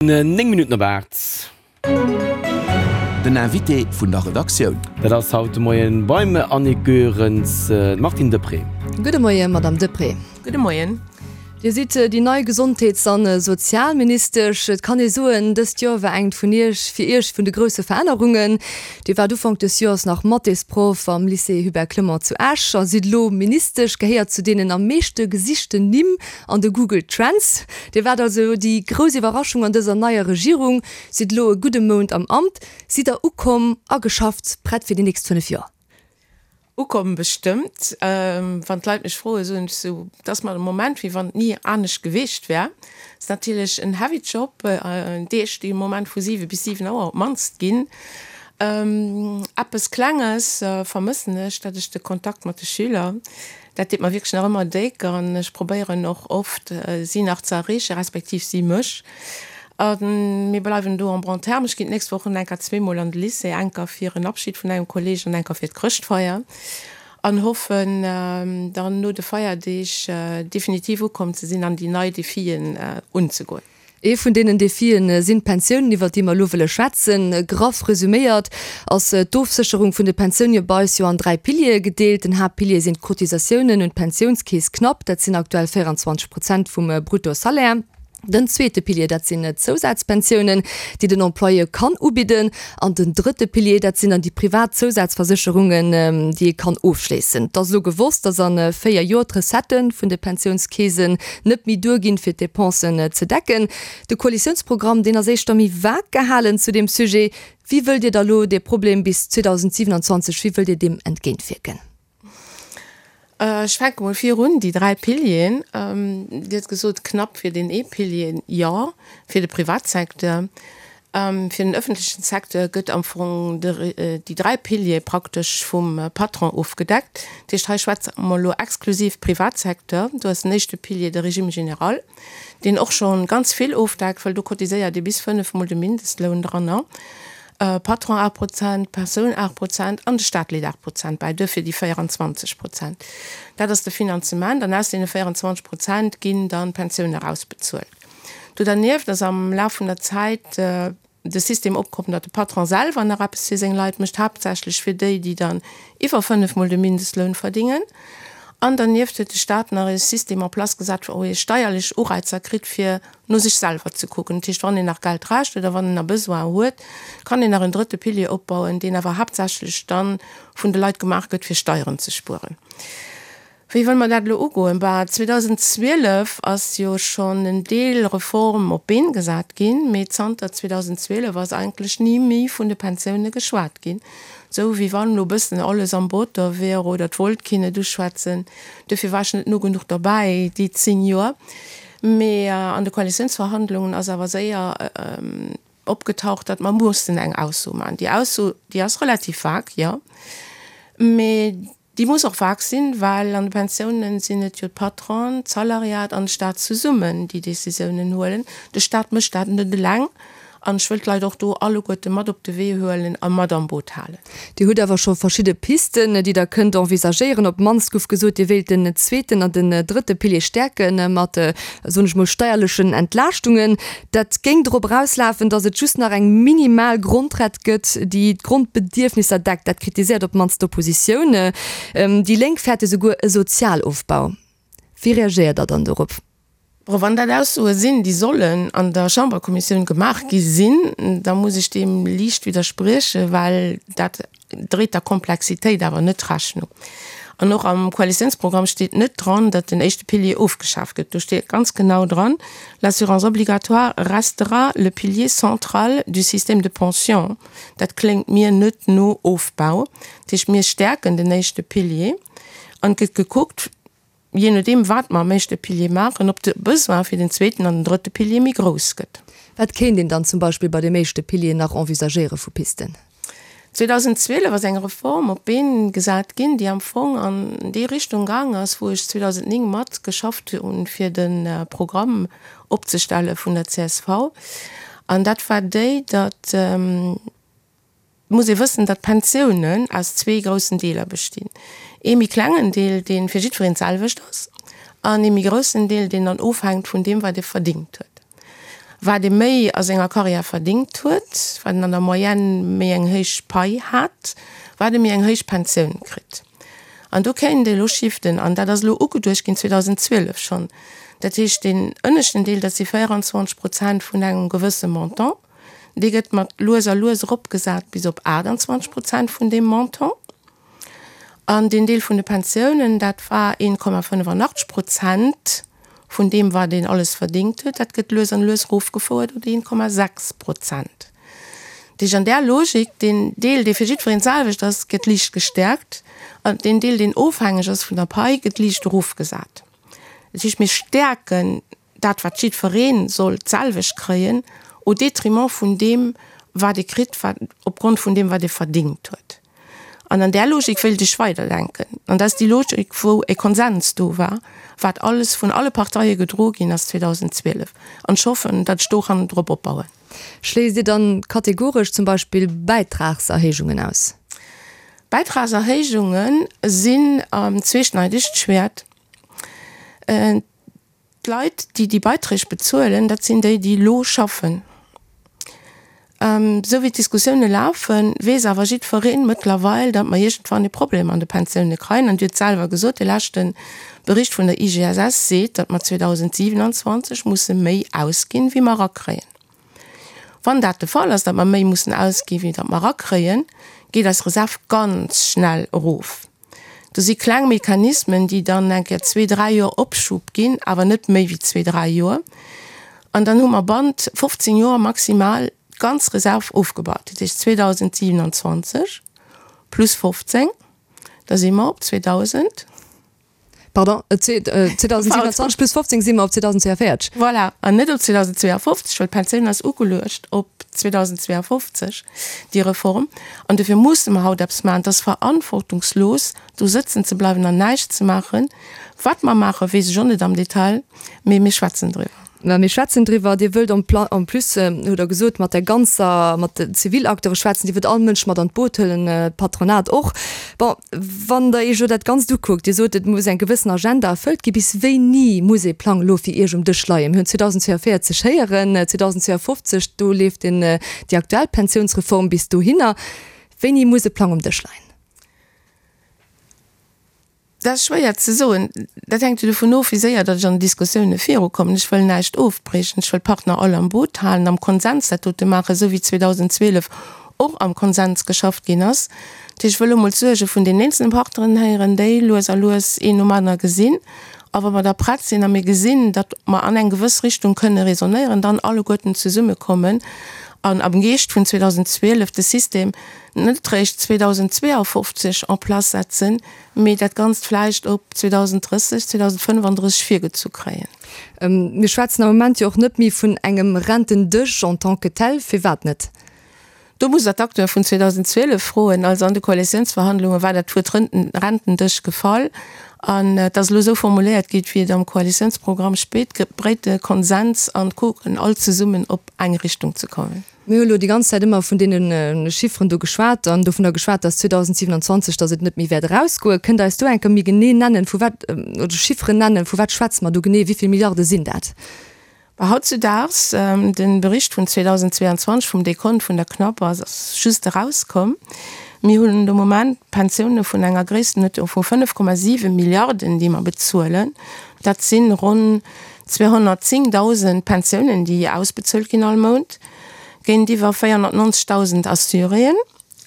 9 Minutten op 8. Den Invité vun der Redaktioun. Dat ass haut de Moien beim Annick Goerens d'Martine Deprez. Gudde Moien, Madame Deprez. Gudde Moien. Dir sidd déi nei Gesondheets an Sozialministesch. Et kann ee soen, dëst Joer war engt vun Iech, fir Iech vun de grousse Verännerungen. Dir waart Ufank des Joers nach Mathésproff am Lycée Hubert Clement zu Esch a sidd elo Ministesch, gehéiert zu deenen am meeschte gesichten Nimm an de Google Trends. Dir waart also déi grouss Iwwerraschung an dëser neier Regierung, sidd elo e gudde Mount am Amt. Sidd der ukomm, ageschafft, prett fir déi nächst 5 Joer? Ukomm bestëmmt. Wann d'Leit mech froen, soen ech sou, et ass mer de Moment wéi wann et ni anescht geweecht wär. Et ass natierlech en heavy Job, Deeg déi am Moment vu 7 bis 7 Auer op d'mannst ginn. Eppes Klenges vermëssen ech, dat ech de Kontakt mat de Schüler. Dat deet mer wierklech nach ëmmer déck an ech probéieren och oft, si nach ze erreechen, respektiv si mech. A mir bleiwen do en bon terme. Ech ginn d'nächst Woch enker zweemol an de Lycée, enker fir en Abschid vun engem Kolleeg an enker fir d'Chrëschtfeier an hoffen dann no de Feierdeeg definitiv ukomm ze sinn an déi nei Defien unzegoen. Ee vun deenen Defien sinn d'Pensiounen, iwwert déi mer elo wëlle schwätzen. Graff resuméiert ass d'Ofsécherung vun de Pensioune bei eis jo an 3 Piliere gedeelt. Den Haaptpilier sinn d'Cotisatiounen un d'Pensiounskeess, knapp, dat sinn aktuell 24 Prozent vum Bruttosalaire. Den zweete Pilier, dat sinn d'Zousazpensiounen, déi den Employeur kann ubidden. An den drëtte Pilier, dat sinn dann déi privat Zousazversécherungen, déi ee kann ofschléissen. Et ass elo gewosst, dass a 4 Joer d'Recettë vun de Pensiounskeesen net méi duerginn, fir d'Depensen ze decken. De Koalitiounsprogramm, deen ass éischter méi vag gehalen zu deem Sujet. Wéi wëllt Dir da lo dee Problem bis 2027, wéi wëllt Dir deem entgéintwierken? Ech fänke mol virun, déi 3 Pilieren. Dir hutt gesot, knapp fir deen ee Pilier, jo, fir de Privatsecteur. Fir den öffentlechen Secteur gëtt am Fong déi 3 Piliere praktesch vum Patron ofgedeckt. Dat heescht, hei schwätze mer elo exklusiv Privatsecteur. Do ass den éischte Pilier de Régime général, deen och scho ganz vill ofdeckt, well do cotiséiert ee bis fënnefmol de Mindestloun dranner. Patron 8 Prozent, Persoun 8 Prozent an de Staat leet 8 Prozent bäi, duerfir déi 24 Prozent. Dat ass de Finanzement an aus deene 24 Prozent ginn dann d'Pensioune erausbezuelt. Do dernieft ass am Laf vun der Zäit de System opkomm, datt de Patron selwer nach eppes fir seng Leit mécht, haaptsächlech fir déi, déi dann iwwer fënnefmol de Mindestloun verdingen. An dernieft huet de Staat nach e System en place gesat, wou ee steierlech Ureizer kritt, fir no sech selwer ze kucken. Dat heescht, wann een nach Geld rächt oder wann en nach Besoin huet, kann een nach en drëtte Pilier opbauen, deen awer haaptsächlech da vun de Leit gemaach gëtt, fir Steieren ze spueren. Wéi wëlle mer dat elo ugoen? Bah, 2012 ass jo schonn en Deel Reform op d'Been gesat ginn, mee zanter 2012 ass eigentlech ni méi vun de Pensioune geschwat ginn, esou wéi wann elo e bëssen alles am Botter wier oder et wollt keen et uschwätzen. Duerfir war ech net no genuch derbäi déi 10 Joer. Mee an de Koalitiounsverhandlungen ass awer séier opgetaucht, datt mer mussen eng Ausso maachen. Déi Ausso, déi ass relativ vag, jo, mee Déi muss och vag sinn, well an de Pensiounen sinn et jo d'Patronen, d'Salariat an de Staat zesummen, déi Décisiounen huelen. De Staat mécht dat net eleng an ech wëll d'Leit och do alleguerte mat op de Wee huelen a mat am Boot halen. Dir hutt awer scho verschidde Pisten, déi Der kënnt envisagéieren. Op d'mannst gouf gesot, Dir wéilt den zweeten an den drëtte Pilier stäerke mat, soen ech mol, steierlechen Entlaaschtungen. Dat géing drop erauslafen, datt et just nach eng minimal Grondrett gëtt, déi d'Grondbedierfnisser deckt. Dat kritiséiert op d'mannst d'Oppositioun. Déi Lénk fäerte souguer e Sozialofbau. Wéi reagéiert Der dann dorop? Bon, wann dat Aussoe sinn, déi sollen an der Chamberkommissioun gemaach gi sinn, da muss ech deem liicht widderspriechen, well dat dréit der Komplexitéit awer net Rechnung. An och am Koalitiounsprogramm steet net dran, datt den éischte Pilier ofgeschaaft gëtt. Do steet ganz genau dran, L'assurance obligatoire restera le pilier central du système de pension. Dat kléngt mir net no Ofbau. Dat heescht, mir stäerken den éischte Pilier an et gëtt gekuckt, jee nodeem wat mer am éischte Pilier maachen, ob de Besoin fir den zweeten an den drëtte Pilier méi grouss gëtt. Wat kéint een dann zum Beispill bei deem éischte Pilier nach envisagéiere vu Pisten? 2012 ass eng Reform op d'Been gesat ginn, déi am Fong an déi Richtung gaang ass, wou ech 2009 mat geschafft hunn, fir de Programm opzestelle vun der csv. An dat war déi, datt, Et muss ee wëssen, datt d'Pensiounen aus zwee groussen Deeler bestinn, ee méi klengen Deel, dee fir jiddwereen d'selwecht ass, an ee méi groussen Deel, deen dann ofhänkt vun deem, wat ee verdingt huet. Wat ee méi a senger Karriär verdingt huet, wat en an der Moyenne méi eng héich Pai hat, wat e méi eng héich Pensioun kritt. An do kéint ee elo shiften, an dat ass elo ugeduecht ginn 2012 schonn. Dat heescht, deen ënneschten Deel, dat si 24 Prozent vun engem gewësse Montant, dee gëtt mat lues a lues eropgesat bis op 28 Prozent vun deem Montant. An deen Deel vun de Pensiounen, dat war 1,85 Prozent vun deem, wat een alles verdingt huet, dat gëtt lues an lues erofgefouert op 1,6 Prozent. Dat heescht, an där Logik, deen Deel, dee fir jiddwereen d'selwecht ass, gëtt liicht gestäerkt, an deen Deel, deen ofhängeg ass vun der Pai, gëtt liicht erofgesat. Dat heescht, mir stäerken dat wat jiddweree soll d'selwecht kréien, au détriment vun deem wat e kritt, wat opgrond vun deem wat e verdingt huet. An an där Logik wéilt ech weiderdenken. An dat ass déi Logik wou e Konsens do war, wat alles vun alle Parteie gedroe ginn ass 2012. An ech hoffen, datt ech do kann drop opbauen. Schléisst Dir dann kategoresch zum Beispill Bäitragserhéijungen aus? Bäitragserhéijunge sinn en zweeschneidegt Schwäert. D'Leit, déi déi Beiträg bezuelen, dat sinn déi, déi elo schaffen. Esou wéi d'Diskussioune lafen, weess awer jiddweree mëttlerweil, datt mer iergendwann e Problem an de Pensioune kréien. An Dir hutt selwer gesot, de leschte Bericht vun der IGSS seet, datt mer 2027 musse méi ausginn, wéi mer erakréien. Wann dat de Fall ass, datt mer méi mussen ausginn, wéi datt mer erakréien, geet eis Reserv ganz schnell erof. Do si kleng Mechanismen, déi dann eng Kéier zwee, dräi Joer Opschub ginn, awer net méi wéi zwee, dräi Joer. An dann hu mer bannt 15 Joer maximal d'ganz Reserv ofgebaut. Dat heescht 2027 plus 15, da si mer op 2000. Pardon, 2027 plus 15 si mer op 2042. Voilà, an net op 2052, well d'Pensioun ass ugeluecht op 2052, déi Reform. An dofir musse mer haut eppes maachen. Et ass verantwortungslos, do sëtzen ze bleiwen an näischt ze maachen. Wat mer maachen, weess ech och net am Detail, mee mir schwätzen driwwer. Mä mir schwätzen driwwer. Dir wëllt en en plus, hutt Der gesot, mat der ganzer, mat den Zivilacteure schwätzen. Dir wëllt all Mënsch mat an d'Boot huelen, d'Patronat och. Bon, wann Der Iech elo dat Ganzt ukuckt, Dir sot, et muss eng gewëssen Agenda erfëllt ginn. Bis wéini muss ee Plang elo fir Iech um Dësch leien? Mir hunn 2042 héieren, 2052, do leeft den, déi aktuell Pensiounsreform bis dohinner. Wéini muss e Plang um Dësch leien? Dat ass schwéier ze soen. Dat hänkt jo dovun of, wéi séier datt ech an den Diskussioune virukommen. Ech wëll näischt ofbriechen. Ech wëll d'Partner all am Boot halen, am Konsens dat dote maachen, esou wéi 2012 och am Konsens geschafft ginn ass. Dat heescht, ech wëll emol d'Suerge vun den eenzelne Partneren héieren, déi lues a lues een nom anere gesinn. A wa mer da prett sinn a mir gesinn, datt mer an eng gewëss Richtung kënne raisonnéieren, dann alleguerten zesummekommen an am Geescht vun 2012 de System net réischt 2052 en place setzen, mee dat Ganzt vläicht op 2030, 2035 virgezu kréien. Mir schwätzen am Moment jo och net méi vun engem Rentendësch en tant que tel. Firwat net? Do musst Der d'Acteure vun 2012 froen. Also an de Koalitiounsverhandlunge war dat Wuert Rentendësch gefall an et ass elo esou formuléiert gi wéi et am Koalitiounsprogramm speet, breete Konsens an kucken all zesummen op eng Richtung ze kommen. Mir hu elo déi ganz Zäit ëmmer vun deene Chifferen do geschwat an dovunner geschwat, dass 2027, dass et net méi wäert erausgoen. Kënnt Der eis do eng Kéier méi genee nennen, vu wat, oder Chifferen nennen, vu wat schwätze mer do genee, wéi vill Milliarde sinn dat? Bah, hautzudaags, de Bericht vun 2022 vum Dekont vun der CNAP ass just erauskomm. Mir hunn de Moment Pensioune vun enger Gréisstenuerdnung vu 5,7 Milliarden, déi mer bezuelen. Dat si ronn 210.000 Pensiounen, déi ausbezuelt ginn all Mount, géintiwwer 490.000 Assuréen.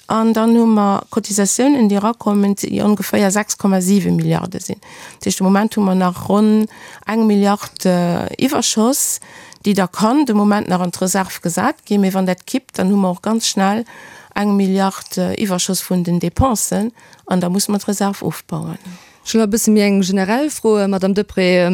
An dann hu mer Cotisatiounen, déi erakommen, déi ongeféier 6,7 Milliarde sinn. Dat heescht, de Moment hu mer nach ronn eng Milliard Iwwerschoss, déi da kann de Moment nach an d'Reserv gesat ginn. Mee wann dat kippt, dann hu mer och ganz schnell eng Milliard Iwwerschoss vun den Dépensen an da musse mer d'Reserv ofbauen. Ech hunn nach e bësse méi eng generell Fro, Madame Deprez.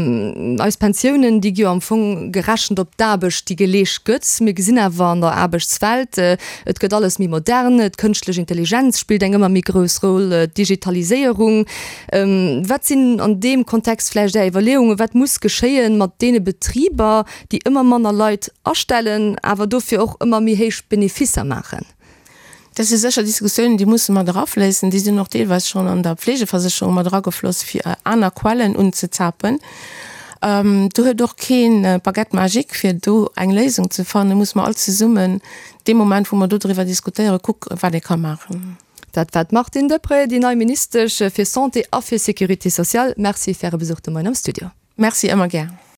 Eis Pensiounen, déi gi jo am Fong gerechent op d'Aarbecht, déi geleescht gëtt. Mir gesinn awer an der Aarbechtswelt, et gëtt alles méi modern, d'kënschtlech Intelligenz spillt eng ëmmer méi grouss Roll, d'Digitaliséierung. Wat sinn an deem Kontext vläicht Är Iwwerleeungen? Wat muss geschéien mat deene Betriber, déi ëmmer manner Leit astellen, awer dofir och ëmmer méi héich Beneficer maachen? Dat si sécher Diskussiounen, déi musse mat erafléissen. Déi sinn och deelweis schonn an der Pflegeversécherung mat eragefloss, fir aner Quellen unzezapen. Do huet och keen Baguette magique, fir do eng Léisung ze fannen. Musse mer all zesummen dee Moment, wou mer do driwwer diskutéieren, kucken, wat ee ka maachen. Dat war d'Martine Deprez, déi nei Ministesch fir Santé a fir Sécurité sociale. Merci fir Äre Besuch de Moien am Studio. Merci, ëmmer gär.